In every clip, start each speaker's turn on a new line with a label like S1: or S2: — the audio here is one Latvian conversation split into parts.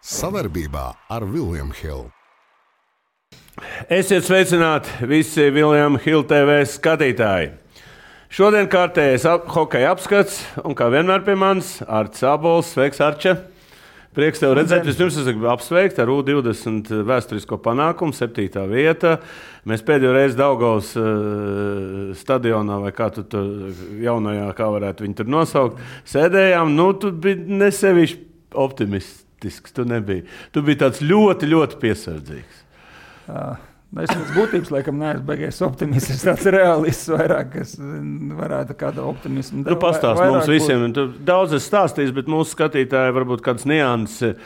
S1: Sadarbībā ar William Hill.
S2: Esiet sveicināti visi William Hill TV skatītāji. Šodien kārtējais hokeja apskats, un kā vienmēr pie manis Arts Abols. Sveiks, Arče! Prieks tev redzēt. Vispirms es gribu apsveikt ar U20 vēsturisko panākumu, 7. vieta. Mēs pēdējo reizi Daugavas stadionā, vai kā tu tur jaunajā, kā varētu viņu tur nosaukt, sēdējām. Tu biji nesevišķi optimistisks, tu nebija. Tu biji tāds ļoti, ļoti piesardzīgs.
S3: Es pēc būtības, laikam, neesmu beigies optimists. Es tāds realists vairāk, kas varētu kādu optimismu.
S2: Tu pastāst mums visiem. Tu daudz esi stāstījis, bet mūsu skatītāji varbūt kāds nianses.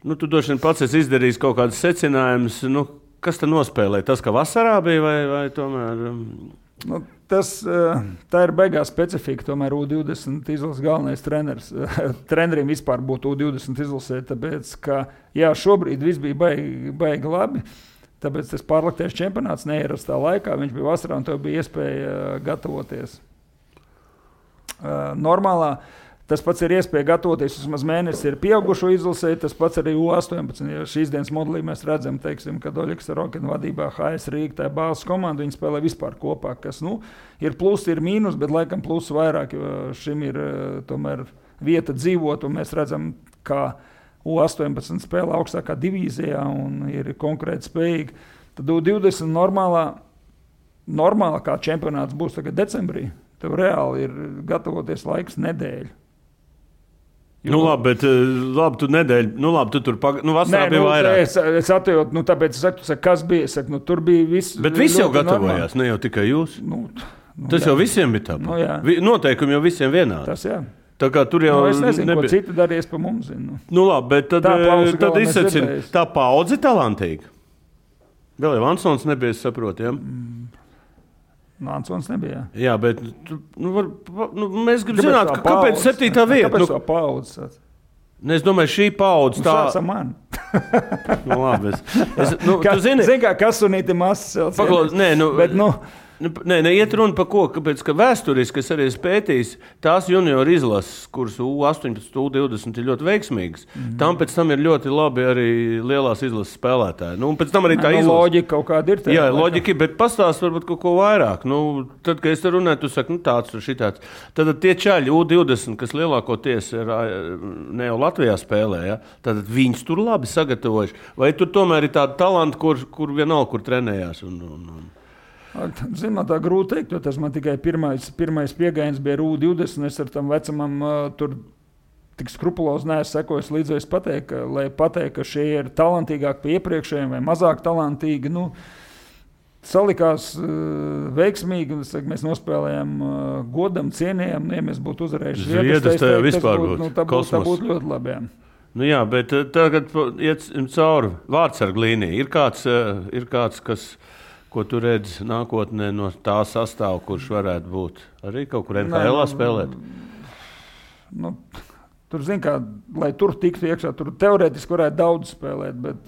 S2: Tu droši vien pats esi izdarījis kaut kādus secinājumus. Kas te nospēlēja? Tas, ka vasarā bija vai tomēr?
S3: Tā ir baigā specifika. Tomēr U20 izlases galvenais treneris. Treneriem vispār būtu U20 izlasē, tāpēc, ka šobrīd viss bija baigi labi. Tāpēc tas pārliktais čempionāts neierastā laikā. Viņš bija vasarā un tev bija iespēja gatavoties. Normālā tas pats ir iespēja gatavoties. Vismaz mēnesis ir pieaugušo izlasē, tas pats arī U18. Ja šīs dienas modelī mēs redzam, kad Oļegs Rokina vadībā HS Rīga, tā bāzes komanda, viņi spēlē vispār kopā, kas ir plusi, ir mīnus, bet laikam plusi vairāk, jo šim ir tomēr vieta dzīvot, un mēs redzam, kā U18 spēlē augstākā divīzijā un ir konkrēti spējīgi. Tad U20 normālā kā čempionāts būs tagad decembrī. Tev reāli ir gatavoties laiks nedēļu.
S2: Labi, bet tu nedēļu, tu tur vasarā bija vairāk.
S3: Es atjautu, tāpēc es saku, kas bija, es saku, tur bija viss.
S2: Bet visi jau gatavojās, ne jau tikai jūs. Tas jau visiem bija tāpat. Noteikumi jau visiem vienādi.
S3: Tas jā.
S2: Tā kā tur jau
S3: es nezinu, ko citi darīs pa mums.
S2: Labi, bet tad izsacina, tā paudze talantīga. Vēl jau Ansons nebija, es saprotu, ja?
S3: Ansons nebija.
S2: Jā, bet mēs gribam zināt, kāpēc 7. vieta?
S3: Kāpēc tā paudze?
S2: Es domāju, šī paudze tā...
S3: Sāc ar mani.
S2: Labi, tu zini...
S3: Zini, kā kasunīti masas celts.
S2: Iet runa par ko, kāpēc, ka vēsturiski es arī pētījis tās junioru izlases, kuras U18, U20 ir ļoti veiksmīgas. Tam pēc tam ir ļoti labi arī lielās izlases spēlētāji. Un pēc tam arī tā izlase.
S3: Loģika kaut kāda ir.
S2: Jā, loģika, bet pastāst varbūt kaut ko vairāk. Tad, kad es te runāju, tu saki, tāds un šitāds. Tad tie čaļi U20, kas lielākoties ne jau Latvijā spēlē, ja? Tad viņus tur labi sagatavojuši. Vai tur tomēr ir tāda talanta, kur vienalga, kur trenējās?
S3: Zinu, tā grūti teikt, jo tas man tikai pirmais piegājiens bija U20. Es ar tam vecumam tur tik skrupulozi neesmu sekojis līdz pateikt, ka šie ir talantīgāki pie iepriekšējiem vai mazāk talantīgi. Salikās veiksmīgi, mēs nospēlējām godam, cienījām, ja mēs būtu uzvarējuši
S2: Zviedras, tajā vispār būtu
S3: tā būtu ļoti labi.
S2: Jā, bet tagad iet cauri vārdsargu līniju. Ir kāds, ko tu redzi nākotnē no tā sastāva, kurš varētu būt arī kaut kur NHL spēlēt?
S3: Tur, lai tur tiktu iekšā, tur teorētiski varētu daudz spēlēt, bet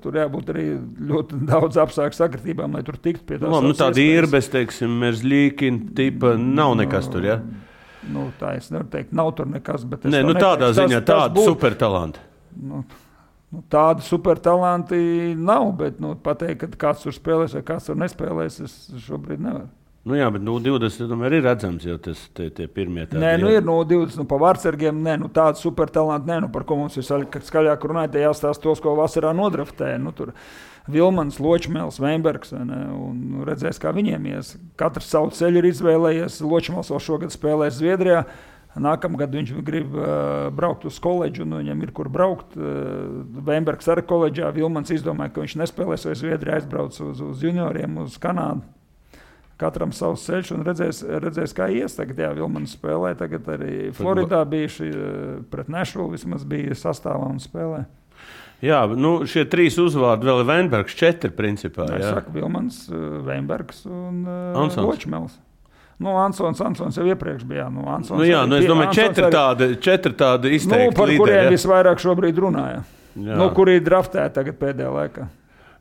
S3: tur jābūt arī ļoti daudz apstākļu sakritībām, lai tur tiktu pie tās.
S2: Tāda Irbes, Merzļīkina tipa nav nekas tur, ja?
S3: Tā es nevaru teikt, nav tur nekas, bet...
S2: tādā ziņā tāda supertalanta.
S3: Tādi supertalanti nav, bet pateikt, ka kāds tur spēlēs vai kāds tur nespēlēs, es šobrīd nevaru.
S2: Jā, bet 20 tomēr ir redzams, jo tas tie pirmie tādi.
S3: Ir 20 pa vārdsargiem, tādi supertalanti, par ko mums ir skaļāk runājot, jāstāst tos, ko vasarā nodraftēja. Tur Vilmans, Ločmēls, Veinbergs, un redzēs, kā viņiem ies. Katrs savu ceļu ir izvēlējies. Ločmēls vēl šogad spēlēs Zviedrijā. Nākamgad viņš grib braukt uz koledžu, un viņam ir kur braukt. Veinbergs arī koledžā. Vilmans izdomāja, ka viņš nespēlēs vai Zviedrijā aizbrauc uz junioriem, uz Kanādu. Katram savs ceļš un redzēs kā ies. Tagad Vilmans spēlē, tagad arī Floridā bijuši pret Nešvilu, vismaz bija sastāvā un spēlē.
S2: Jā, šie 3 uzvārdi vēl ir Veinbergs, 4 principā.
S3: Es saku, Vilmans, Veinbergs un Ločmēls. Ansons jau iepriekš bija.
S2: Es domāju, 4 tādi izteikti
S3: par
S2: līderi.
S3: Kuriem visvairāk šobrīd runāja. Kuri ir draftēti tagad pēdējā laikā.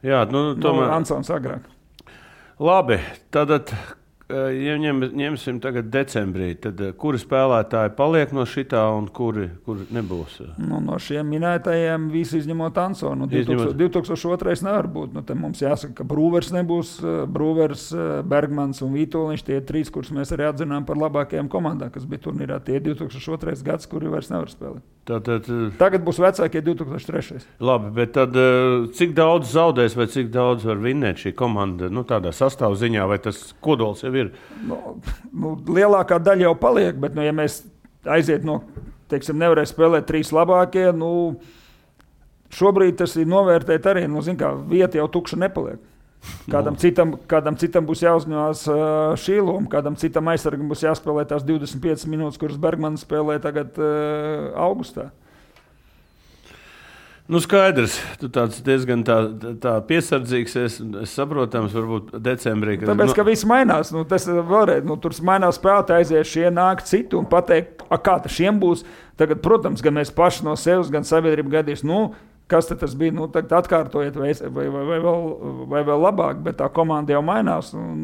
S2: Jā, tomēr.
S3: Ansons agrāk.
S2: Labi, tad ja ņemsim tagad decembrī, tad kuri spēlētāji paliek no šitā un kuri nebūs?
S3: No šiem minētajiem visi izņemot Ansonu. 2002. nevar būt. Te mums jāsaka, ka Brūvers nebūs. Brūvers, Bergmans un Vītoliņš tie 3, kurus mēs arī atzinām par labākajām komandām, kas bija turnīrā. Tie 2002. gads, kuri vairs nevar spēlēt. Tagad būs vecākie 2003.
S2: Labi, bet tad cik daudz zaudēs vai cik daudz var vinnēt šī komanda? Tādā sastāvziņā vai tas kodols jau ir?
S3: Lielākā daļa jau paliek, bet, ja mēs aiziet nevarēs spēlēt 3 labākie, šobrīd tas ir novērtēt arī, vieta jau tukša nepaliek. Kādam citam būs jāuzņemās šī loma, kādam citam aizsargam būs jāspēlē tās 25 minūtes, kuras Bergmans spēlē tagad augustā.
S2: Skaidrs, tu tāds diezgan tā piesardzīgs, es saprotams, varbūt decembrī.
S3: Tāpēc, ka viss mainās, tas vēlreiz, tur mainās spēlētāji, aizies šie nāk citu un pateikt, kā tas šiem būs. Tagad, protams, gan mēs paši no sevis, gan sabiedrība gadīs, kas tas bija, tagad atkārtojiet vai vēl labāk, bet tā komanda jau mainās un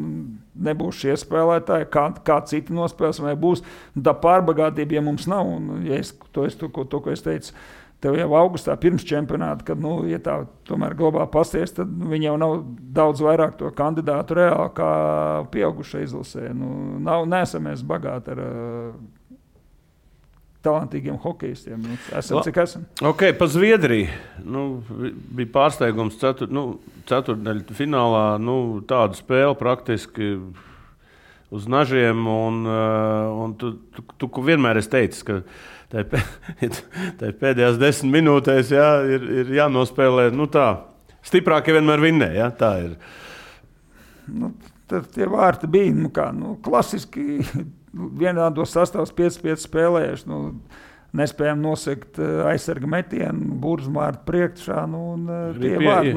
S3: nebūs šie spēlētāji, kā citi nospēles vai būs. Tā pārbagātība, ja mums nav, un ja ko es teicu, tev jau augustā pirms čempionāta, kad, ja tā tomēr globāli pasties, tad viņi jau nav daudz vairāk to kandidātu reāli kā pieaugušai izlasē. Neesam mēs bagāti ar talantīgiem hokejistiem. Esam, cik esam.
S2: Ok, pa Zviedriju. Bija pārsteigums ceturtdaļu finālā, tādu spēli praktiski uz nažiem, un tu vienmēr esi teicis, ka tā pēdējās 10 minūtēs ir jānospēlē, tā, stiprākie vienmēr vinnē, tā ir.
S3: Tie vārti bija, klasiski vienādos sastāvs 5-5 spēlējuši, nespējam nosekt aizsarga metienu, burzmārtu priekšā, tie vārti,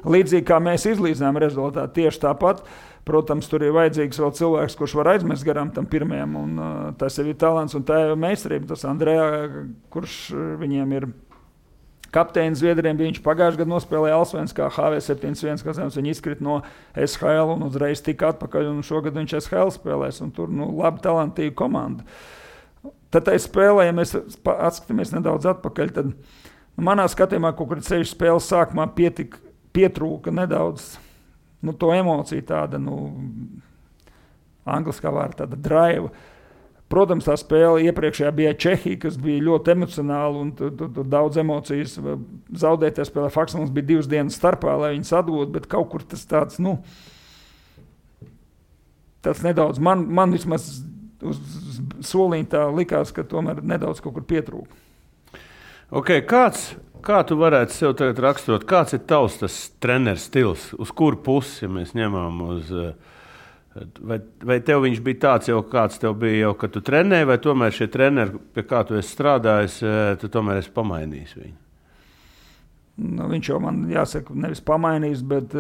S3: līdzīgi kā mēs izlīdzinām rezultātu, tieši tāpat. Protams, tur ir vajadzīgs vēl cilvēks, kurš var aizmest garām tam pirmajam, un tas jau ir talants un tā ir meistarība. Tas Andrejā, kurš viņiem ir kapteinis Zviedriem, viņš pagājušajā gadā nospēlēja Allsvenskā HV71, kas viņš izkrita no SHL un uzreiz tika atpakaļ, un šogad viņš SHL spēlēs, un tur labi talantīga komanda. Tad tai spēlē, ja mēs atskatāmies nedaudz atpakaļ, tad manā skatījumā kaut kur 6 spēles sākumā pietrūka nedaudz to emociju tāda, angliskā vārda tāda drive. Protams, tā spēle iepriekšējā bija Čehija, kas bija ļoti emocionāla un tur daudz emocijas zaudētajā spēlē. Faktiski mums bija 2 dienas starpā, lai viņas atgūtu, bet kaut kur tas tāds, tāds nedaudz, man vismaz uz soliņa tā likās, ka tomēr nedaudz kaut kur pietrūka.
S2: Ok, kā tu varētu sev tagad raksturot, kāds ir tavs tas treneris stils, uz kuru pusi, ja mēs ņemam uz, vai tev viņš bija tāds jau, kāds tev bija jau, kad tu trenēji, vai tomēr šie treneri, pie kā tu esi strādājis, tu tomēr esi pamainījis viņu?
S3: Viņš jau man, jāsaka, nevis pamainījis, bet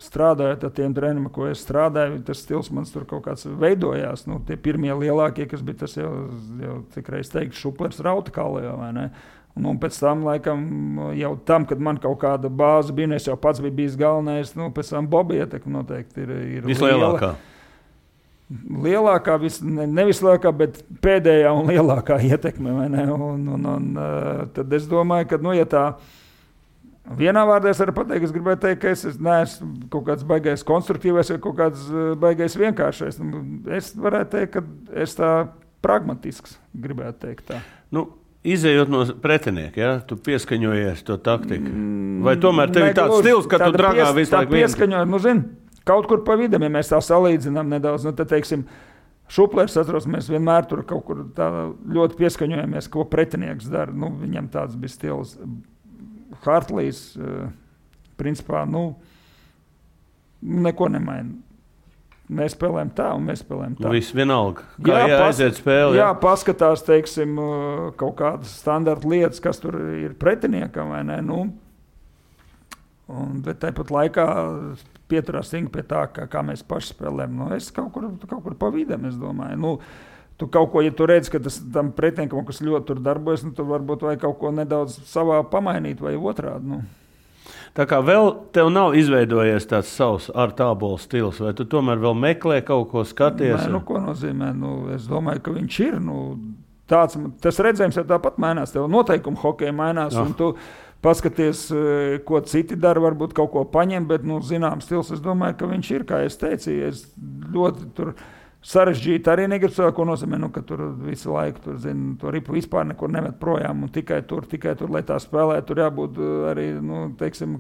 S3: strādājot ar tiem treneriem, ko es strādāju, tas stils man tur kaut kāds veidojās. Tie pirmie lielākie, kas bija tas jau cik reiz teikt, Šuplers Rautakālē, vai ne? Un pēc tam, laikam, jau tam, kad man kaut kāda bāze bija, es jau pats biju bijis galvenais, pēc tam Boba ietekme noteikti ir
S2: vislielākā.
S3: Lielākā, nevis lielākā, bet pēdējā un lielākā ietekme, vai ne? Un tad es domāju, ka, ja tā vienā vārdā es varu pateikt, es gribētu teikt, ka es neesmu kaut kāds baigais konstruktīvais vai kaut kāds baigais vienkāršais. Es varētu teikt, ka es tā pragmatisks gribētu teikt tā.
S2: Izejot no pretinieka, tu pieskaņojies to taktiku? Vai tomēr tev ir tāds stils, ka tu dragā visu laiku vienu?
S3: Pieskaņojot, kaut kur pa vidam, ja mēs tā salīdzinām nedaudz, tad, teiksim, Šuplers, atceros, mēs vienmēr tur kaut kur tā ļoti pieskaņojamies, ko pretinieks dara. Viņam tāds bija stils. Hartlīs, principā, neko nemaina. Mēs spēlējam tā, un mēs spēlējam tā.
S2: Viss vienalga. Kā aiziet spēle?
S3: Jā, paskatās, teiksim, kaut kādas standarta lietas, kas tur ir pretiniekam, vai ne? Bet tāpat laikā pieturās pie tā, kā mēs paši spēlējam. Es kaut kur pa vidam, es domāju. Tu kaut ko, ja tu redzi, ka tam pretiniekam, kas ļoti tur darbojas, tu varbūt vai kaut ko nedaudz savā pamainīt vai otrādi.
S2: Tā kā vēl tev nav izveidojies tāds savs ar tābolu stils, vai tu tomēr vēl meklē kaut ko skaties?
S3: Nē, ko nozīmē? Es domāju, ka viņš ir. Tas redzējums jau tāpat mainās. Tev noteikumi hokeja mainās, un tu paskaties, ko citi dara, varbūt kaut ko paņem, bet, zināms stils, es domāju, ka viņš ir, kā es teicu, es ļoti tur sarežģīti arī negribu cilvēku, ko nozīmē, ka tur visu laiku, to ripu vispār nekur nemet projām, un tikai tur, lai tā spēlē, tur jābūt arī, teiksim,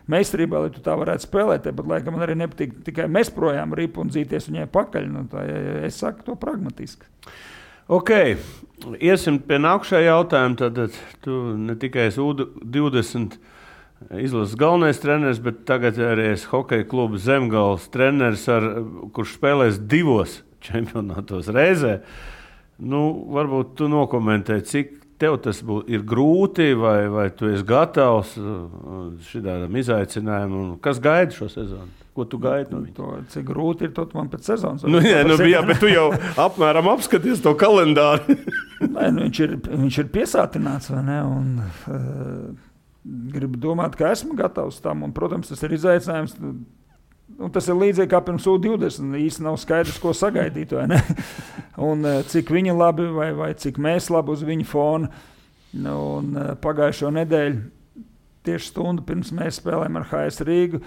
S3: meistarībā, lai tu tā varētu spēlēt, bet laikam man arī nepatīk tikai mest projām ripu un dzīties viņai pakaļ, es saku to pragmatiski.
S2: Ok, iesim pie nākušā jautājuma, tad tu ne tikai esi U20 izlases galvenais treneris, bet tagad arī es hokeja kluba Zemgales treneris, kurš spēlēs 2 čempionātos reizē. Varbūt tu nokomentē, cik tev tas ir grūti, vai tu esi gatavs šitādam izaicinājumam, un kas gaida šo sezonu? Ko tu gaidi no viņa?
S3: Cik grūti ir, to man pēc sezonas.
S2: Jā, bet tu jau apmēram apskaties to kalendāru.
S3: Nē, viņš ir piesātināts, vai ne? Un gribu domāt, ka esmu gatavs tam, un, protams, tas ir izaicinājums. Tas ir līdzīgi kā pirms U20. Īsti nav skaidrs, ko sagaidīt, vai ne? Un cik viņi labi, vai cik mēs labi uz viņu fona. Un pagājušo nedēļu, tieši stundu pirms mēs spēlējām ar HS Rīgu,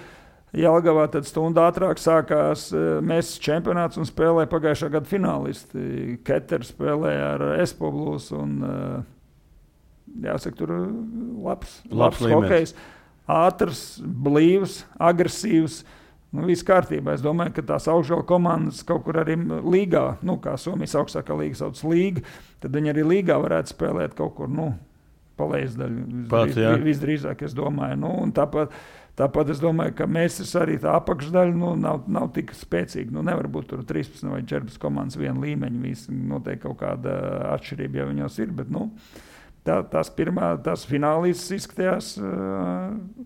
S3: Jelgavā, tad stundu ātrāk sākās mēs čempionāts un spēlēja pagājušā gada finālisti. Keters spēlēja ar Espo Blues un jāsaka, tur labs hokejs, ātrs, blīvs, agresīvs, viss kārtībā. Es domāju, ka tās augšgala komandas kaut kur arī līgā, kā Somijas augstākā līga sauc līga, tad viņi arī līgā varētu spēlēt kaut kur, pa lejasdaļu. Visdrīzāk, es domāju. Un tāpat es domāju, ka mēs arī tā apakšdaļa nav tik spēcīga. Nevar būt tur 13 vai 14 komandas viena līmeņa. Visi noteikti kaut kāda atšķirība jau viņos ir, bet tās finālīstas izskatījās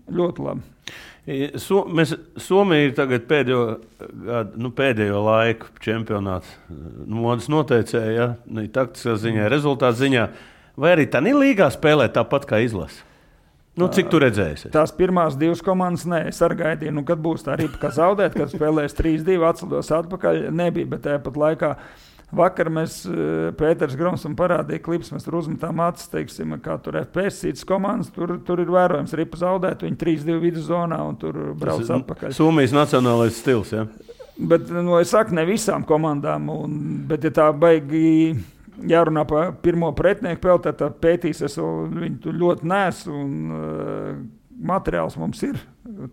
S3: ļoti labi.
S2: Somija ir tagad pēdējo laiku čempionāts modes noteicēja, taktiskā ziņā, rezultātu ziņā. Vai arī tā līgā spēlē tāpat kā izlase? Cik tu redzēsi?
S3: Tās pirmās 2 komandas, es arī gaidīju, kad būs tā ripa, kā zaudēt, kad spēlēs 3-2, atcelos atpakaļ, nebija, bet tāpat laikā vakar Pēters Gromsam parādīja klips, mēs tur uzmetām acis, teiksim, kā tur FPS citas komandas, tur ir vērojams ripa zaudēt, viņi 3-2 viduszonā un tur brauc atpakaļ.
S2: Somijas nacionālais stils, ja?
S3: Bet, es saku, ne visām komandām, bet ja tā baigi jārunā par pirmo pretinieku peltē, tad pētīs, es viņu ļoti nesu un materiāls mums ir.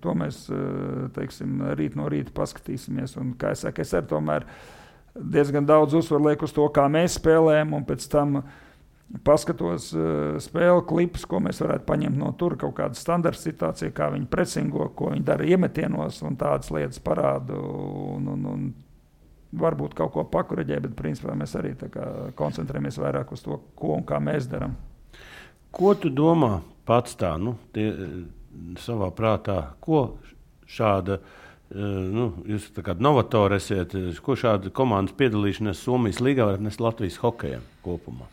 S3: To mēs, teiksim, rīt no rīta paskatīsimies. Un, kā es saku, es arī tomēr diezgan daudz uzsvaru lieku uz to, kā mēs spēlējam, un pēc tam paskatos spēle klipus, ko mēs varētu paņemt no tur, kaut kāda standarta situācija, kā viņi presingo, ko viņi dara iemetienos un tādas lietas parādu. Un varbūt kaut ko pakoreģē, bet principā mēs arī koncentrējamies vairāk uz to, ko un kā mēs darām.
S2: Ko tu domā pats tā, savā prātā, ko šāda, jūs tā kā novatori esiet, ko šāda komandas piedalīšanās Somijas līgā var nest Latvijas hokejam kopumā?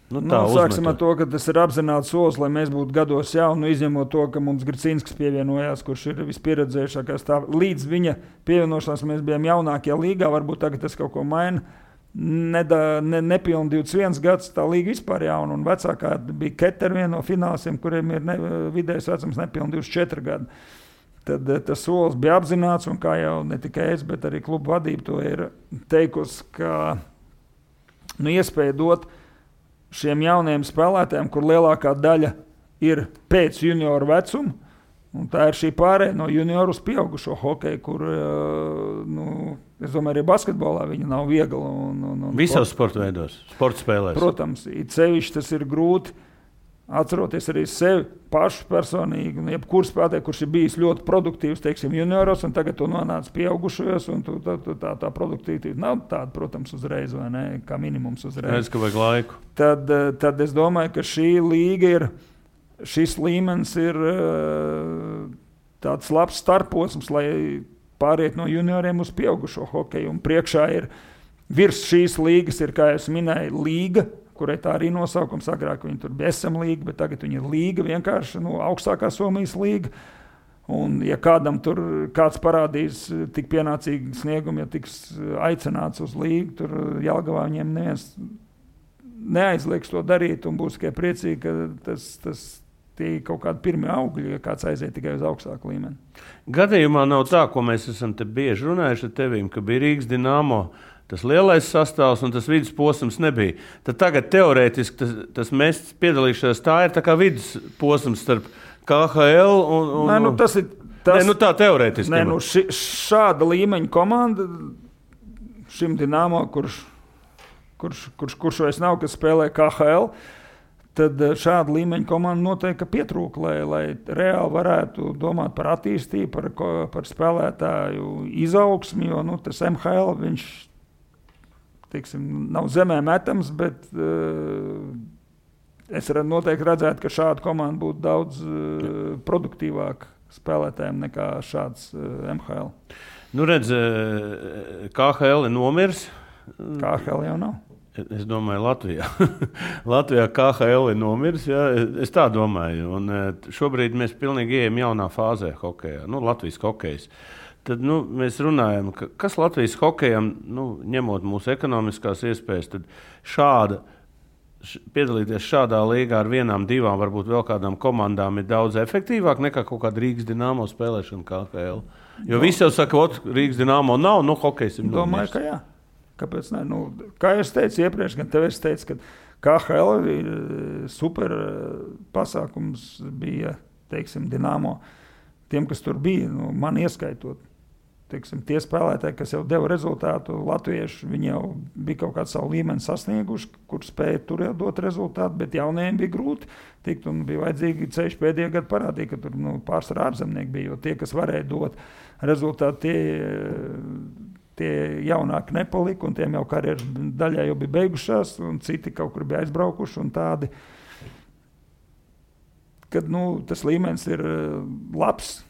S3: Sāksim ar to, ka tas ir apzināts solis, lai mēs būtu gados jauni, izņemot to, ka mums Gricīnskis pievienojās, kurš ir vispieredzējušākais. Līdz viņa pievienošanās mēs bijām jaunākie līgā, varbūt tagad tas kaut ko maina. Nepilni 21 gads, tā līga vispār jauna, un vecākā bija Keter, viena no finālistiem, kuriem ir vidējais vecums nepilni 24 gadi. Tad tas solis bija apzināts, un kā jau ne tikai es, bet arī klubu vadība to ir teikusi, ka iespēja dot šiem jauniem spēlētājiem, kur lielākā daļa ir pēc junioru vecuma, un tā ir šī pārēja no junioru uz pieaugušo hokeju, kur, es domāju, arī basketbolā viņa nav viegla.
S2: Visos sporta veidos, sporta spēlēs.
S3: Protams, it sevišķi tas ir grūti, atceroties arī sevi pašu personīgi, jebkur spēlētāju, kurš ir bijis ļoti produktīvs, teiksim, junioros, un tagad tu nonāc pieaugušajos, un tā produktivitāte nav tāda, protams, uzreiz, vai ne, kā minimums uzreiz.
S2: Redz, ka vajag laiku.
S3: Tad es domāju, ka šī līga šis līmenis ir tāds labs starposms, lai pāriet no junioriem uz pieaugušo hokeju, un priekšā ir virs šīs līgas ir, kā es minēju, līga, kurai tā arī nosaukums. Agrāk viņi tur bija SM līga, bet tagad viņi ir līga, vienkārši augstākā Somijas līga. Un, ja kādam tur kāds parādīs tik pienācīgi sniegumu, ja tiks aicināts uz līgu, tur Jelgavā viņiem neviens neaizlieks to darīt un būs tikai priecīgi, ka tie kaut kādi pirmie augļi, ja kāds aiziet tikai uz augstāku līmeni.
S2: Gadījumā nav tā, ko mēs esam te bieži runājuši ar tevīm, ka bija Rīgas Dinamo tas lielais sastāvs un tas vidusposms nebija. Tad tagad teorētiski tas mēs piedalīšanās, tā ir tā kā vidusposms starp KHL un...
S3: Nē, tas ir...
S2: tā teorētiski.
S3: Nē, šāda līmeņa komanda šim Dinamo, kurš vairs nav, kas spēlē KHL, tad šāda līmeņa komanda noteikti pietrūka, lai reāli varētu domāt par attīstību, par spēlētāju izaugsmi, jo tas MHL, viņš, teiksim, nav zemē metams, bet... Es noteikti redzētu, ka šāda komanda būtu daudz produktīvāka spēlētājiem nekā šāds MHL.
S2: Nu, redz, KHL ir nomirs.
S3: KHL jau nav.
S2: Es domāju, Latvijā KHL ir nomirs. Jā, es tā domāju. Un šobrīd mēs pilnīgi ejam jaunā fāzē hokejā. Latvijas hokejs. Tad mēs runājam, kas Latvijas hokejam, ņemot mūsu ekonomiskās iespējas, tad piedalīties šādā līgā ar vienām, divām, varbūt vēl kādām komandām ir daudz efektīvāk nekā kaut kāda Rīgas Dinamo spēlēšana KHL. Jo visi jau saka, Rīgas Dinamo nav, hokejs ir
S3: domāju, ka jā. Kāpēc ne? Kā es teicu iepriekš, gan tev es teicu, ka KHL ir super pasākums bija, teiksim, Dinamo. Tiem, kas tur bija, man ieskaitot. Teiksim, tie spēlētāji, kas jau deva rezultātu, latvieši, viņi jau bija kaut kādu savu līmeni sasnieguši, kur spēja tur jau dot rezultātu, bet jaunajiem bija grūti tikt un bija vajadzīgi ceļš pēdējā gada parādīt, ka tur pārsvarā ārzemnieki bija, jo tie, kas varēja dot rezultātu, tie jaunāki nepalika un tiem jau karjeras daļā jau bija beigušās un citi kaut kur bija aizbraukuši un tādi, kad tas līmenis ir labs.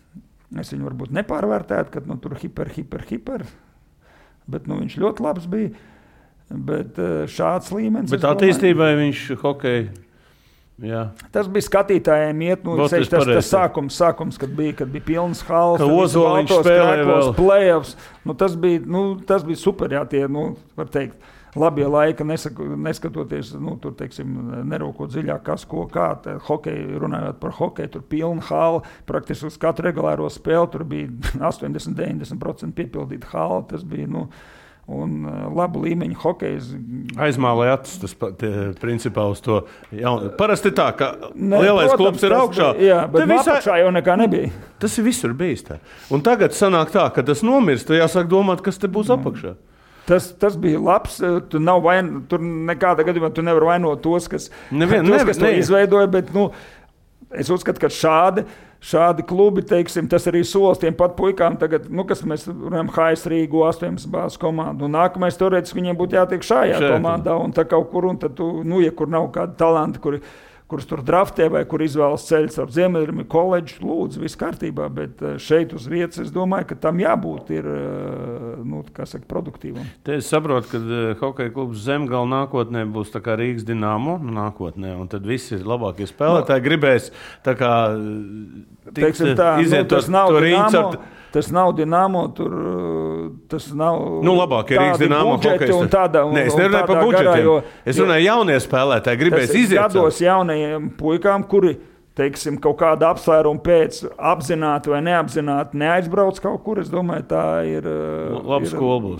S3: Es viņu varbūt nepārvērtētu, ka tur hiper, bet viņš ļoti labs bija. Bet šāds līmenis...
S2: Bet attīstībai viņš hokeja... Jā.
S3: Tas bija skatītājiem iet, tas sākums, kad bija pilnas halas,
S2: ka Ozoliņš spēlēja vēl.
S3: Playoffs, tas bija super, jā, tie, var teikt, labie laika, neskatoties, tur, teiksim, nerūkot dziļāk, kas, ko, kā, hokeju, runājot par hokeju, tur pilna hala, praktiski uz katru regulāro spēli, tur bija 80-90% piepildīta hala, tas bija, un labu līmeņu hokejs.
S2: Aizmālēja acis, tas principā uz to jaunu. Parasti tā, ka lielais klubs ir augšā.
S3: Jā, bet apakšā jau nekā nebija.
S2: Tas ir visur bijis tā. Un tagad sanāk tā, ka tas nomirst, jāsāk domāt, kas te būs apakšā.
S3: Tas bija labs. Tur nekādā gadījumā tu nevar vainot tos, kas to izveidoja, bet es uzskatu, ka šādi klubi, teiksim, tas arī solis tiem pat puikām tagad, kas mēs runājam, HS Rīgu 18 bāzes komandu. Un nākamais teorētiski viņiem būtu jātiek šajā komandā un tā kaut kur, un tad ja kur nav kādi talanti, kurus tur draftē vai kur izvēlas ceļus ar Ziemeļrimi koledžu, lūdzu, viss kārtībā, bet šeit uz vietas es domāju, ka tam jābūt ir, produktīvam.
S2: Te es saprotu, ka hokeja klubs Zemgala nākotnē būs tā kā Rīgas Dinamo nākotnē, un tad visi labākie spēlētāji gribēs tā kā iziet to rīņu ar...
S3: Tas nav Dinamo, tas nav
S2: labākie Rīgas Dinamo
S3: budžeti un tāda.
S2: Nē, es nerunāju par budžetiem. Es runāju jaunie spēlētāji, gribēs iziet.
S3: Gados jaunajiem puikām, kuri, teiksim, kaut kāda apsvēruma pēc apzināti vai neapzināti neaizbrauc kaut kur, es domāju, tā ir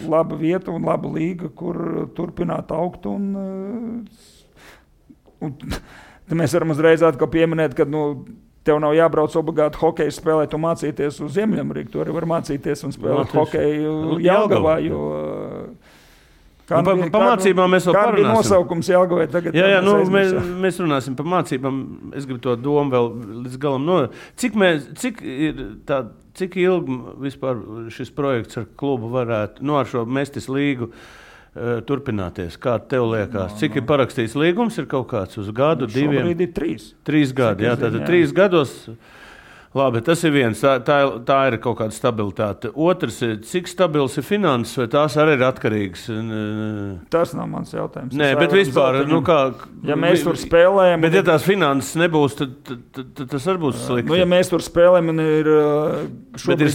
S3: laba vieta un laba līga, kur turpināt augt un mēs varam uzreiz atkal pieminēt, ka, tev nav jābrauc obligāti hokeju spēlēt un mācīties uz Ziemeļameriku. Tu arī var mācīties un spēlēt hokeju Jelgavā, jo...
S2: Pa mācībām mēs vēl parunāsim.
S3: Kāda bija nosaukums Jelgavai tagad?
S2: Jā, mēs runāsim par mācībām. Es gribu to domu vēl līdz galam. Cik ilgi vispār šis projekts ar klubu varētu, ar šo Mestis līgu turpināties? Kā tev liekas? Cik ir parakstīts līgums? Ir kaut kāds uz gadu, diviem?
S3: Šobrīd ir 3.
S2: 3 gadi, jā, tātad 3 gados Labi, tas ir viens. Tā ir kaut kāda stabilitāte. Otrs, cik stabils ir finanses, vai tās arī ir atkarīgas?
S3: Tas nav mans jautājums.
S2: Nē, bet vispār,
S3: ja mēs tur spēlējam...
S2: Bet ja tās finanses nebūs, tad tas arī būs slikti.
S3: Ja mēs tur spēlējam un ir
S2: šobrīd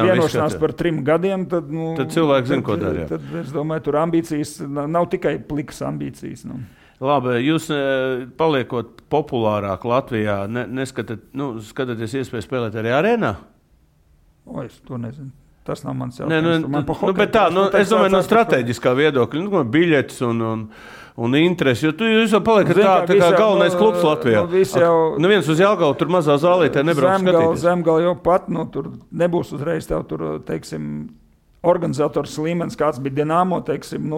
S3: vienošanās par 3 gadiem, tad
S2: cilvēki zina, ko dara.
S3: Tad es domāju, tur ambīcijas nav tikai plikas ambīcijas.
S2: Labi, jūs paliekot populārāk Latvijā, skatāties iespēju spēlēt arī arēnā?
S3: Es to nezinu. Tas nav mans jautājums.
S2: Es domāju, no strateģiskā viedokļa, biļetes un interesi, jo jūs jau paliekat tā kā galvenais klubs Latvijā. Neviens uz Jelgavu tur mazā zālītē nebrauc skatīties.
S3: Zemgal jau pat, tur nebūs uzreiz tev tur, teiksim, organizators līmenis, kāds bija Dinamo, teiksim,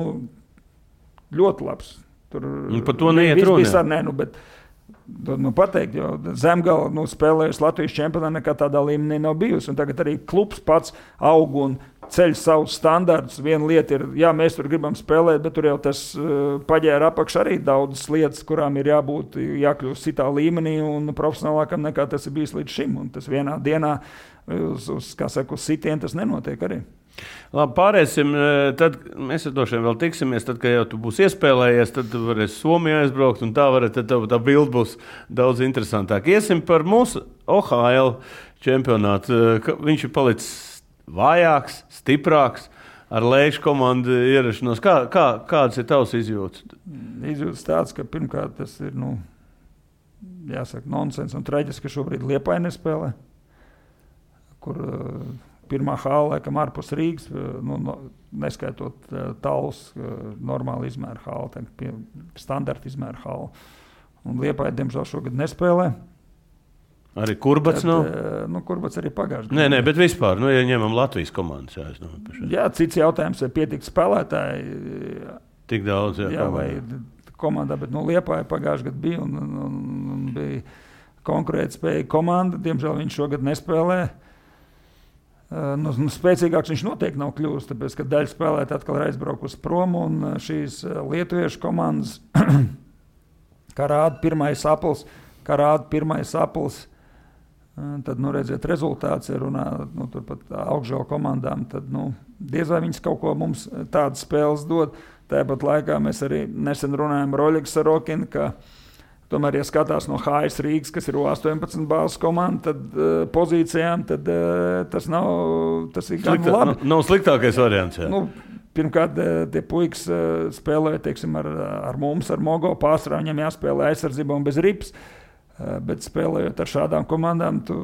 S3: ļoti labs. Tur
S2: par to neiet runa.
S3: Bet pateikt, jo Zemgala spēlējusi Latvijas čempionā nekā tādā līmenī nav bijusi. Un tagad arī klubs pats aug un ceļ savus standartus. Viena lieta ir, mēs tur gribam spēlēt, bet tur jau tas paģēra apakš arī daudzas lietas, kurām ir jākļūst citā līmenī un profesionālākam nekā tas ir bijis līdz šim. Un tas vienā dienā uz sitienu tas nenotiek arī.
S2: Labi, pārēsim, tad mēs droši vien vēl tiksimies, tad, kad jau tu būsi iespēlējies, tad tu varēsi Somijā aizbraukt, un tad tā bilde būs daudz interesantāk. Iesim par mūsu OHL čempionātu. Viņš ir palicis vājāks, stiprāks, ar Leišu komandu ierašanos. Kādas ir tavs izjūtas?
S3: Izjūtas tāds, ka pirmkārt tas ir, jāsaka, nonsens un traģiski, ka šobrīd Liepāja nespēlē, kur... Pirmā hāla, laikam, ārpus Rīgas, neskaitot Talus, normāli izmēra hāla, standarta izmēra hāla. Un Liepāja, diemžēl, šogad nespēlē.
S2: Arī Kurbats nav?
S3: Kurbats arī pagājuši.
S2: Nē, bet vispār, ja ņemam Latvijas komandas.
S3: Cits jautājums, vai pietiek spēlētāji.
S2: Tik daudz,
S3: vai komandā, bet Liepāja pagājuši gadu bija un bija konkurētspējīga komanda. Diemžēl viņš šogad nespēlē. Spēcīgāks viņš noteikti nav kļūst, tāpēc, ka daļa spēlētāji atkal ir aizbraukusi prom, un šīs lietuviešu komandas, kā rāda pirmais aplis, tad, redziet, rezultāts ir runā, turpat augšžēl komandām, tad, diez vai viņas kaut ko mums tādas spēles dod. Tāpat laikā mēs arī nesen runājam ar Oļegu Sarokinu, ka tomēr, ja skatās no HS Rīgas, kas ir 18 bāzes komanda, tad pozīcijām, tad tas ir gan labi.
S2: Nav sliktākais variants, jā.
S3: Pirmkārt, tie puikas spēlēja, teiksim, ar mums, ar Mogo pārsvarā, viņam jāspēlē aizsardzība un bez rips, bet spēlējot ar šādām komandām, tu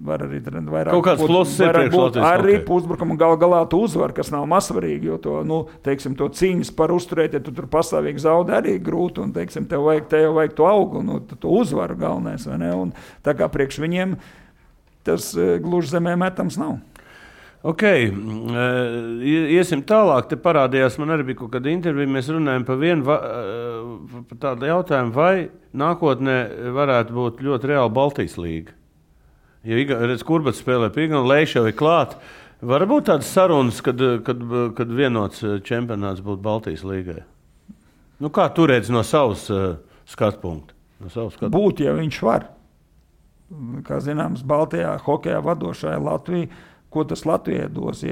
S3: var arī vairāk
S2: kaut kāds pluss ir priekš Latvijas
S3: arī uzbrukumu galā tu uzvar, kas nav mazsvarīgi, jo to, to cīņas par uzturēt, ja tu tur pastāvīgi zaudē arī grūti, un, teiksim, tev vajag to augu, to uzvaru galvenais, vai ne? Un tā kā priekš viņiem tas gluži zemē metams nav.
S2: Ok, iesim tālāk, te parādījās, man arī bija kaut kāda intervija, mēs runājam par tādu jautājumu, vai nākotnē varētu būt ļoti reāli Baltijas līga. Ja Kurbats spēlē pīga un Leiša jau ir klāt, var būt tādas sarunas, kad vienots čempionāts būtu Baltijas līgai? Kā tu redzi no savas skatu punkta?
S3: Būt, ja viņš var. Kā zināms, Baltijā hokejā vadošā ir Latvija. Ko tas Latvijai dos?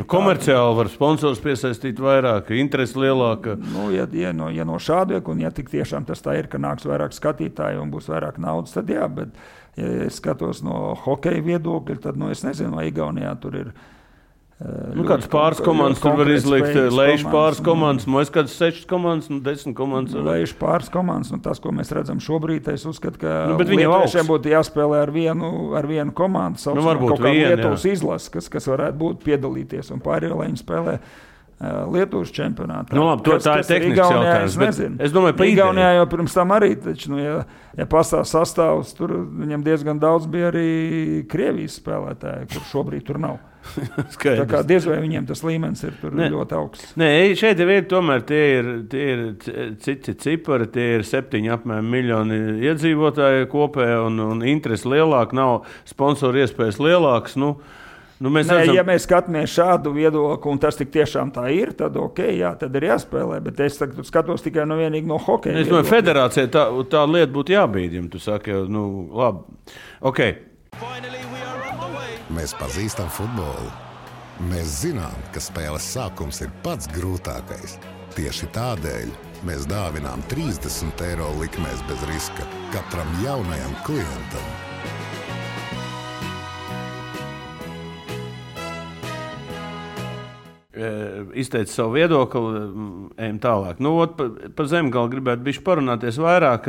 S2: Komerciāli var sponsors piesaistīt vairāk, interesi lielāka.
S3: Ja no šāda, un ja tik tiešām tas tā ir, ka nāks vairāk skatītāju un būs vairāk naudas, tad jā, bet ja es skatos no hokeja viedokļa, tad, es nezinu, vai Igaunijā tur ir
S2: kāds pāris komandas tur var izlikt, Leišu pāris komandas, mēs kāds 6 komandas, 10 komandas.
S3: Leišu pāris komandas, tas, ko mēs redzam šobrīd, es uzskatu, ka lietuviešiem būtu jāspēlē ar vienu komandu, saucamā kaut kā Lietuvas izlases, kas varētu būt piedalīties, un pārējo, lai viņi spēlē Lietuvas čempionātā.
S2: Tā ir tehnisks jautājums, bet es domāju, pa
S3: Igaunijā jau pirms tam arī, taču, ja pastāv sastāvs, tur viņam diezgan daudz bija arī Krievijas spēlētāji, kur šobrīd tur nav. Tā kā diez vai viņiem tas līmenis ir tur ļoti augsts.
S2: Nē, šeit tomēr tie ir citi cipari, tie ir 7 apmēram miljoni iedzīvotāji kopē un interesi lielāk, nav sponsoru iespējas lielāks.
S3: Ja mēs skatāmies šādu viedokli, un tas tik tiešām tā ir, tad tad ir jāspēlē. Bet es skatos tikai vienīgi no hokeja.
S2: Es domāju, federācijai tā lieta būtu jābīd, ja tu saki, labi. Okay.
S1: Mēs pazīstam futbolu. Mēs zinām, ka spēles sākums ir pats grūtākais. Tieši tādēļ mēs dāvinām 30 eiro likmēs bez riska katram jaunajam klientam.
S2: Izteica savu viedokli, ejam tālāk. Par Zemgali gribētu bišķi parunāties vairāk.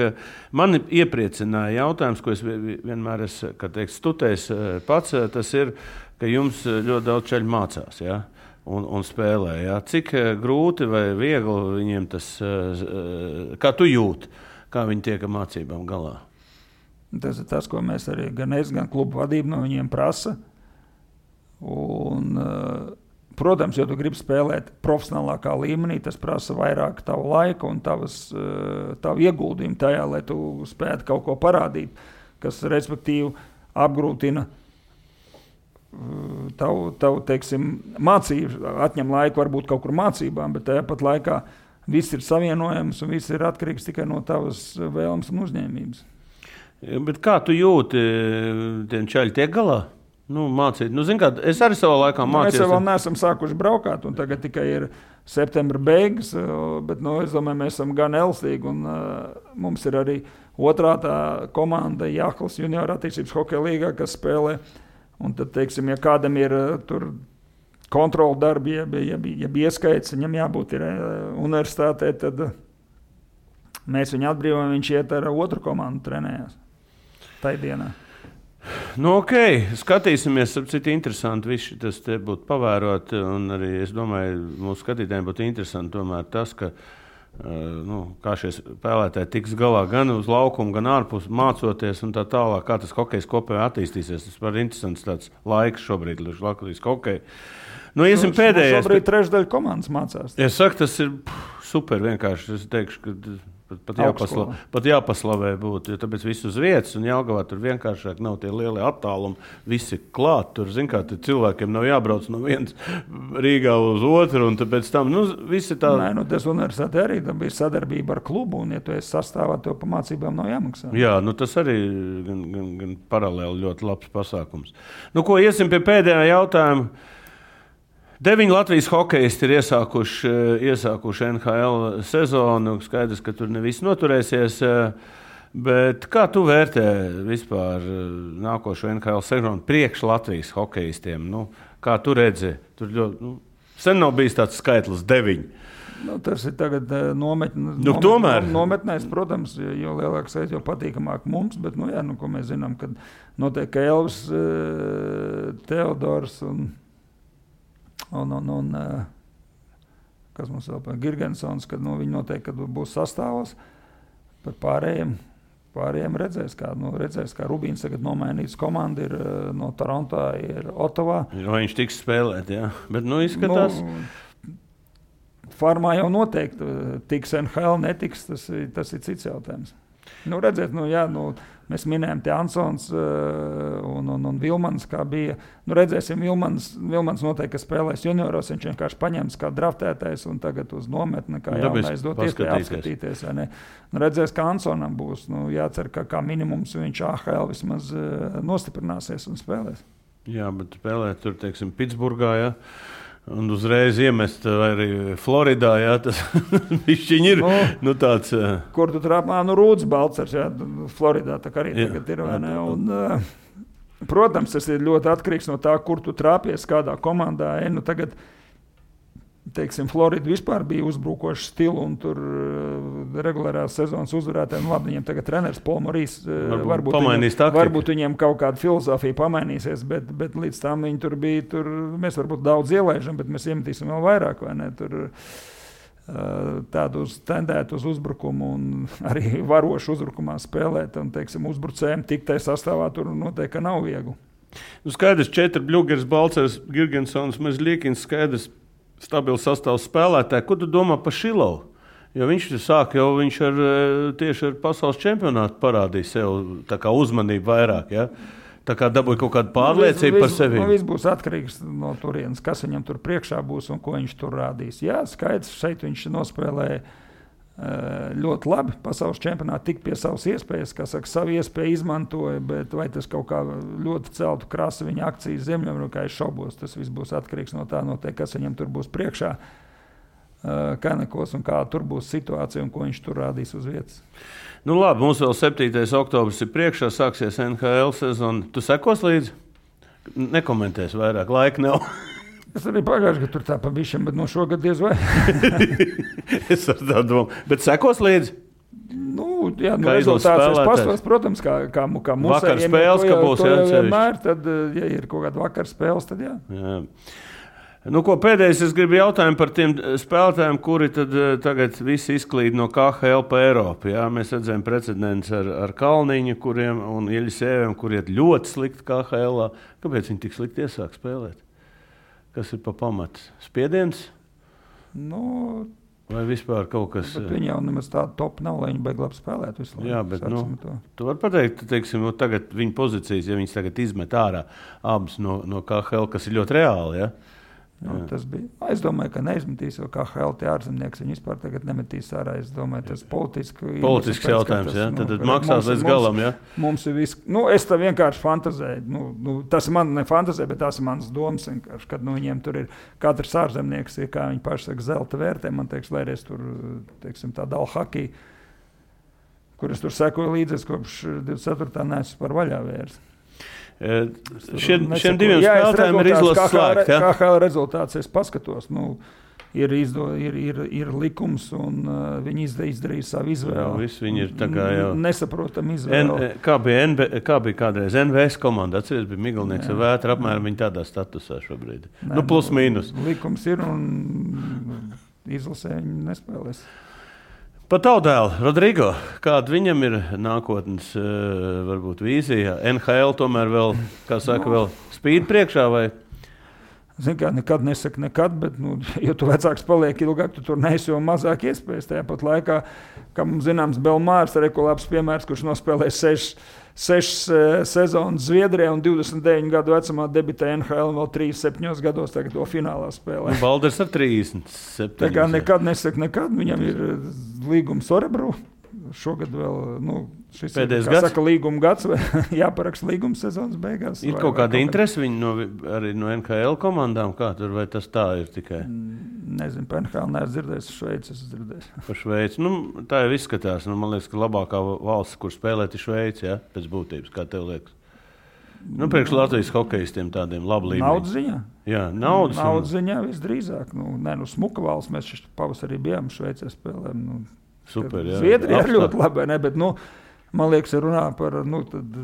S2: Mani iepriecināja jautājums, ko es vienmēr esmu studējis pats, tas ir, ka jums ļoti daudz čaļu mācās, ja? un spēlē. Ja? Cik grūti vai viegli viņiem tas, kā tu jūti, kā viņi tiek ar mācībām galā?
S3: Tas ir tas, ko mēs arī gan klubu vadība no viņiem prasa. Un protams, ja tu gribi spēlēt profesionālākā līmenī, tas prasa vairāk tavu laiku un tavu ieguldījumu tajā, lai tu spētu kaut ko parādīt, kas respektīvi apgrūtina tavu teiksim, mācību, atņem laiku varbūt kaut kur mācībām, bet tajā pat laikā viss ir savienojams un viss ir atkarīgs tikai no tavas vēlmes un uzņēmības.
S2: Bet kā tu jūti, tiem čaļi tiek galā? Mācīt. Kā, es arī savā laikā mācījos.
S3: Mēs vēl neesam sākuši braukāt, un tagad tikai ir septembra beigas, bet es domāju, mēs esam gan elstīgi, un mums ir arī otrā tā komanda Jāklas junior attīstības hokeja līgā, kas spēlē, un tad, teiksim, ja kādam ir tur kontrola darbi, ja ieskaits, viņam jābūt ir universitātē, tad mēs viņu atbrīvojam, viņš iet ar otru komandu trenējās tai dienā.
S2: Skatīsimies, cik interesanti viss tas te būtu pavērot, un arī es domāju, mūsu skatītājiem būtu interesanti tomēr tas, ka kā šie spēlētāji tiks galā gan uz laukumu, gan ārpus mācoties un tā tālāk, kā tas hokejs kopējā attīstīsies. Tas var interesants tāds laiks šobrīd, Latvijas hokeja. Iesim pēdējais.
S3: Šobrīd trešdaļa komandas mācās.
S2: Es saku, tas ir super vienkārši. Es teikšu, ka pat jāpaslavē būtu, jo tāpēc viss uz vietas, un Jelgavā tur vienkāršāk nav tie lielie attālumi, visi klāt, tur, kā cilvēkiem nav jābrauc no vienas Rīgā uz otru, un tāpēc tam, visi tā...
S3: Tas universitāte arī, tam bija sadarbība ar klubu, un ja tu esi sastāvā, tev pa mācībām nav jāmaksā. Jā,
S2: tas arī gan paralēli ļoti labs pasākums. Iesim pie pēdējā jautājuma. 9 Latvijas hokejisti ir iesākuši NHL sezonu. Skaidrs, ka tur ne viss noturēsies. Bet kā tu vērtē vispār nākošo NHL sezonu priekš Latvijas hokejistiem? Kā tu redzi? Tur ļoti, sen nav bijis tāds skaitlis 9.
S3: Tas ir tagad nometnēs, protams, jo lielāks aiz, jo patīkamāk mums. Bet, ko mēs zinām, kad notiek ka Elvis, Teodors un kas mums vēl par Girgensons, kad viņi noteikti, kad būs sastāvos, par pārējiem redzēs, kā Rubīns tagad nomainīts komanda ir no Toronto, ir Ottavā.
S2: Vai viņš tiks spēlēt, jā, bet izskatās.
S3: Farmā jau noteikti tiks NHL, netiks, tas ir cits jautājums. Redzēt, mēs minējām te Ansons un Vilmans, kā bija. Redzēsim, Vilmans noteikti, ka spēlēs junioros, viņš vienkārši paņems kā draftētais un tagad uz nometni, kā jaunais dot iespēju apskatīties. Redzēs, ka Ansonam būs, jācer, ka kā minimums viņš AHL vismaz nostiprināsies un spēlēs.
S2: Jā, bet spēlēt tur, teiksim, Pitsburgā, ja? Un uzreiz iemest arī Floridā, jā, tas višķiņi ir, tāds...
S3: Kur tu trāpā, Rūds Balcers, jā, Floridā, tā kā arī tagad ir, vai ne? Un, protams, tas ir ļoti atkarīgs no tā, kur tu trāpies, kādā komandā, tagad, teiksim, Florida vispār bija uzbrukošs stilu un tur regulārās sezonas uzvarētājiem, labi, viņiem tagad treneris Paul Morīs, varbūt viņiem kaut kāda filozofija pamainīsies, bet līdz tam viņi tur bija, mēs varbūt daudz ielaižam, bet mēs iemetīsim vēl vairāk, vai ne, tur tādu tendētu uz uzbrukumu un arī varošu uzbrukumā spēlēt un, teiksim, uzbrucējiem tiktai sastāvā tur noteikti, ka nav viegli.
S2: Skaidrs, 4 Bļugers, Balcers, Girgensons, Mezļikins, skaidrs, stabils sastāvs spēlētāji. Ko tu domā par Šilovu? Jo viņš tieši ar pasaules čempionātu parādīja sev tā kā uzmanību vairāk. Ja? Tā kā dabūja kaut kādu pārliecību par sevi.
S3: Viss būs atkarīgs no turienes, kas viņam tur priekšā būs un ko viņš tur rādīs. Jā, skaidrs, šeit viņš nospēlēja ļoti labi. Pasaules čempionātā tik pie savas iespējas, kā saka, savu iespēju izmantoja, bet vai tas kaut kā ļoti celtu krasi viņa akcijas Ziemeļamerikā, es šaubos. Tas viss būs atkarīgs no tā, kas viņam tur būs priekšā, Kanekos un kā tur būs situācija un ko viņš tur rādīs uz vietas.
S2: Nu labi, mums vēl 7. oktobris ir priekšā, sāksies NHL sezona. Tu sekos līdzi? Nekomentēs vairāk, laika nav.
S3: Es arī pagājuši, ka tur tā pa bišķiem, bet no šogad diez vai.
S2: Es ar tā domu. Bet sekos līdzi?
S3: Nu, jā, rezultāts es pastos, protams, kā mūsu.
S2: Vakar spēles, ka būs
S3: vienmēr, tad, ja ir kaut kāda vakar spēles, tad jā.
S2: Nu, ko pēdējais es gribu jautājumu par tiem spēlētājiem, kuri tad tagad visi izklīd no KHL pa Eiropu. Jā? Mēs redzējām precedents ar Kalniņu kuriem, un Ieļisēviem, kuri iet ļoti slikti KHL. Kāpēc viņi tik slikti iesāk spēlēt? Kas ir pa pamatu? Spiediens?
S3: Nu,
S2: vai vispār kaut kas?
S3: Viņi jau nemaz tādu top nav, lai viņi beig labi spēlēt visu laiku.
S2: Jā, bet tu vari pateikt, teiksim, tagad viņa pozīcijas, ja viņas tagad izmet ārā abas no KHL, kas ir ļoti reāli, ja?
S3: Tas bija. Es domāju, ka neizmetīs, jo KHL tie ārzemnieks viņi vispār tagad nemetīs ārā. Es domāju, tas
S2: politisks jautājums, ja? Tad maksās līdz galam, ja?
S3: Mums ir viss. Nu, es tā vienkārši fantazēju. Tas man ne fantazēja, bet tās ir manas domas vienkārši, kad viņiem tur ir katrs ārzemnieks, kā viņi paši saka, zelta vērtē. Man teiks, lai es tur, teiksim, tā dala hakī, kur es tur sekoju līdzi, kopš 24. neesmu par vaļā vērs.
S2: Šiem diviem spēlētājiem ir izlases slēgt.
S3: KHL rezultāts es paskatos. Ir likums, un viņi izdarīja savu izvēli.
S2: Viņi ir tā kā jau
S3: nesaprotam izvēli.
S2: Kā bija kādreiz NVS komanda? Atceries, bija Migalnieks ar Vētru, apmēram viņi tādā statusā šobrīd. Plus mīnus.
S3: Likums ir, un izlasē viņi nespēlēs.
S2: Pat Taudēlu, Rodrigo, kāda viņam ir nākotnes varbūt vīzija? NHL tomēr vēl, kā saka, vēl spīd priekšā vai?
S3: Zini kā, nekad nesaka nekad, bet, ja tu vecāks paliek ilgāk, tu tur neesi jau mazāk iespējas. Tajā pat laikā, kā mums zināms, Belmārs ir labs piemērs, kurš nospēlē 6 sezonas Zviedrijā un 29 gadu vecumā debitēja NHL un vēl 37 gados tagad to finālā spēlē.
S2: Balders ar 37.
S3: Tā kā nekad nesaka nekad, viņam ir līgums Orebru. Šogad vēl, šis
S2: pēdējais
S3: ir, kā saka, līguma gads, vai jāparaksta līguma sezonas beigās.
S2: Ir kaut kāda interese viņi arī no NHL komandām, kā tur, vai tas tā ir tikai?
S3: Nezinu, par NHL neesmu dzirdējis, Šveici esmu dzirdējis.
S2: Par Šveici, tā jau izskatās, man liekas, ka labākā valsts, kur spēlēt, ir Šveici, ja, pēc būtības, kā tev liekas. Priekš Latvijas hokejistiem tādiem labu līmeni.
S3: Naudas ziņā?
S2: Jā, naudas
S3: ziņā visdrīzāk. Smuka valsts, mēs pavasarī bijām Šveicē spēlēm.
S2: Super, jā.
S3: Zviedrija ir ļoti labi, ne? Bet, man liekas, runā par, tad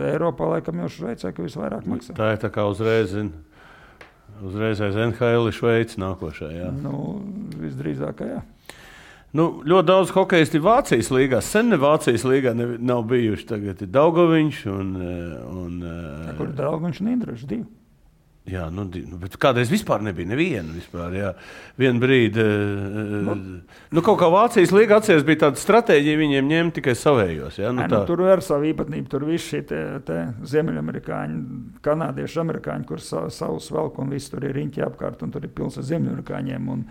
S3: Eiropā laikam jau Šveicē, ka visvairāk maksā.
S2: Tā ir tā kā uzreiz aiz NHL Šveici nākošā, jā.
S3: Visdrīzāk, jā.
S2: Ļoti daudz hokejisti Vācijas līgā. Sen ne Vācijas līgā nav bijuši. Tagad ir Daugoviņš un
S3: kur ir Daugoviņš un Indrašs 2?
S2: Jā, bet kādreiz vispār nebija neviena vispār, jā. Vienu brīdi, kaut kā Vācijas līga atceries bija tāda stratēģija, viņiem ņemt tikai savējos, jā.
S3: Tur ir savu īpatnību, tur visi šie te ziemeļamerikāņi, kanādieši, amerikāņi, kur savus velk un visi tur ir riņķi apkārt un tur ir pils ar ziemeļamerikāņiem un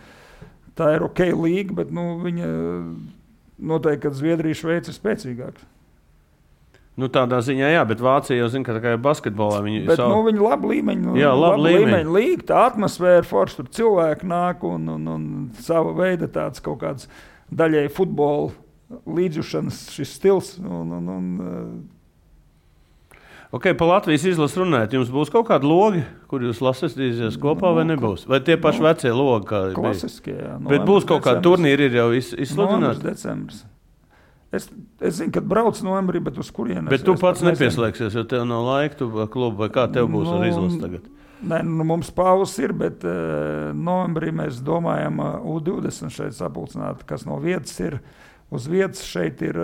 S3: tā ir ok līga, bet, viņa noteikti, ka Zviedrija, Šveica ir spēcīgāks.
S2: Tādā ziņā, jā, bet Vācija jau zina, ka tā kā ir basketbolā.
S3: Viņi labi līmeņi, labi līmeņi līga, tā atmosfēra forša, tur cilvēki nāk un sava veida tāds kaut kāds daļēji futbola līdzjušanas šis stils.
S2: Ok, pa Latvijas izlases runājot, jums būs kaut kādi logi, kur jūs lasīsieties kopā vai nebūs? Vai tie paši vecie logi, kā
S3: klasiskie, jā.
S2: Bet būs kaut kādi turnīri, ir jau izsludināti?
S3: Decembris. Es zinu, kad brauc novembrī, bet uz kurienes.
S2: Bet tu pats nepieslēgsies, jo tev nav laika, tu klubu, vai kā tev būs ar izlasi tagad?
S3: Nē, mums pauzes ir, bet novembrī mēs domājam U20 šeit sapulcināt, kas no vietas ir. Uz vietas šeit ir,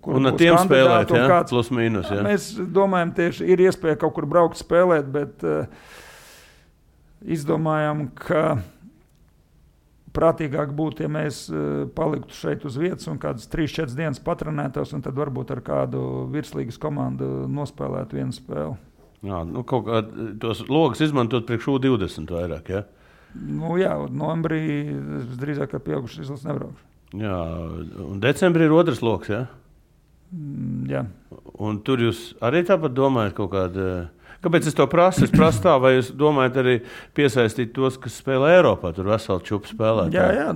S3: kur
S2: un ar tiem spēlēt, jā, plus mīnus, jā.
S3: Mēs domājam, tieši ir iespēja kaut kur braukt spēlēt, bet izdomājam, ka prātīgāk būtu, ja mēs paliktu šeit uz vietas un kādas 3-4 dienas patrenētos, un tad varbūt ar kādu virslīgas komandu nospēlētu vienu spēli.
S2: Jā, kaut kā tos logus izmantot priekš U20 vairāk, ja?
S3: Jā, novembrī drīzāk ar pieaugušu izlases nebraukšu.
S2: Jā, un decembrī ir otrs loks, ja?
S3: Jā.
S2: Un tur jūs arī tāpat domājat kaut kādu... Kāpēc es to prasu? Es prasu tā, vai jūs domājat arī piesaistīt tos, kas spēlē Eiropā, tur veseli čupu spēlētāji?
S3: Jā,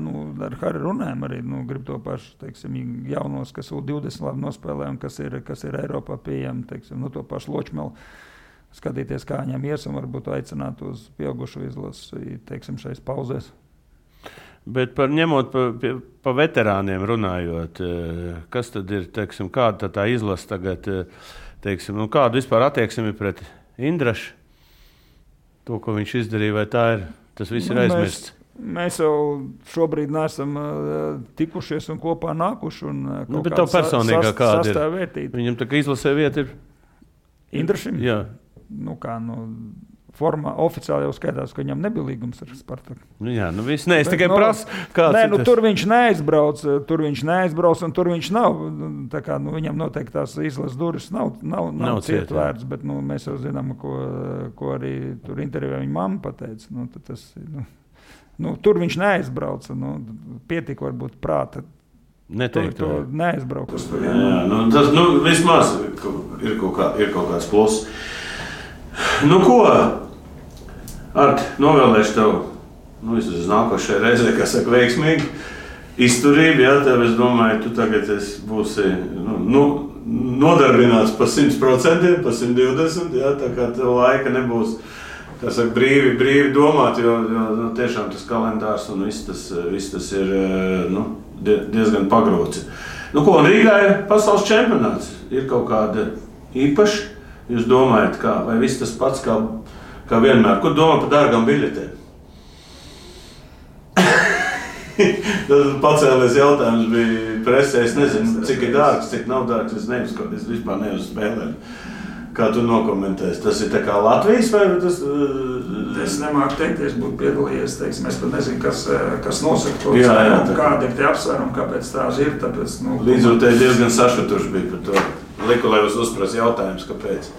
S3: ar Harri runājam arī, grib to pašu, teiksim, jaunos, kas U20 labi nospēlē un kas ir Eiropā pieejami, teiksim, to pašu Ločmelu. Skatīties, kā viņam ies un varbūt aicināt uz pieaugušu izlasi, teiksim, šais pauzēs.
S2: Bet ņemot pa veterāniem runājot, kas tad ir, teiksim, kāda tā izlase tagad, teiksim, kādu vispār attieksmi pret Indrašu? To, ko viņš izdarīja, vai tā ir, tas viss ir aizmirsts?
S3: Mēs jau šobrīd neesam tikušies un kopā nākuši.
S2: Bet tev personīgā kāda ir? Viņam tā kā izlasē vieta ir?
S3: Indrašim?
S2: Jā.
S3: Formā oficiāli jau skaitās, ka viņam nebija līgums ar Spartaku.
S2: Jā, viss nē, es tikai prasu, kāds
S3: tur viņš neaizbrauc, un tur viņš nav. Tā kā, viņam noteikti tās izlases durvis nav cietvērts, bet mēs jau zinām, ko arī tur intervijā viņa mamma pateica. Tur viņš neaizbrauca, pietika varbūt prāta.
S2: Neteikt
S3: to neaizbrauc.
S2: Jā, tas vismaz ir kaut kāds pluss. Ko? Arti, novēlēšu tev, vismaz nākošajai reizē, kā saka, veiksmīgi izturību, jā, tev, es domāju, tu tagad būsi nodarbināts pa 100%, pa 120%, jā, tā kā tev laika nebūs, kā saka, brīvi domāt, jo tiešām tas kalendārs un viss tas ir, diezgan pagrūts. Un Rīgā ir pasaules čempionāts, ir kaut kāda īpaša, jūs domājat, vai viss tas pats, kā vienmēr. Ko domā par dārgām biļetēm? Tas pacēlies jautājums bija presē. Es nezinu, cik ir dārgs, cik nav dārgs. Es vispār neuzspēlēju. Kā tu nokomentēsi? Tas ir tā kā Latvijas vai tas?
S3: Es nemāku teikt, es būtu piedalījies. Teiksim, es pat nezinu, kas nosaka to cenu, kādi ir tie apsvērumi, kāpēc tās ir. Tāpēc,
S2: Līdzjūtēji diezgan sašutuši bija par to. Liku, lai jūs uzprasa jautājums, kāpēc.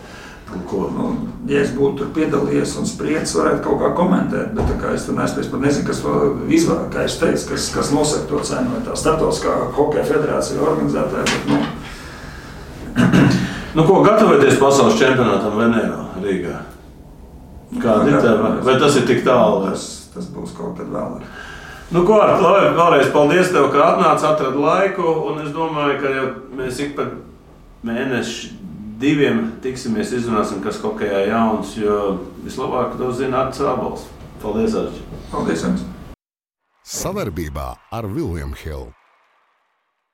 S3: Ja es būtu tur piedalījies un spriedzis, varētu kaut kā komentēt, bet tā kā es tur neesmu, es pat nezinu, kas to izvēl, kā es teicu, kas nosaka to cenu, vai tā starptautiskā hokeja federācija organizētāja, bet
S2: gatavoties pasaules čempionātam Venēro, Rīgā? Kāda ir tev? Vai tas ir tik tālu?
S3: Tas būs kaut kad vēlāk.
S2: Arti, vēlreiz paldies tev, ka atradi laiku, un es domāju, ka jau mēs ik pa mēneši 2 tiksimies, izrunāsim, kas hokejā jauns, jo vislabāk to zina Artis Ābols. Paldies, Arči!
S3: Paldies jums!
S1: Savarbībā ar William Hill.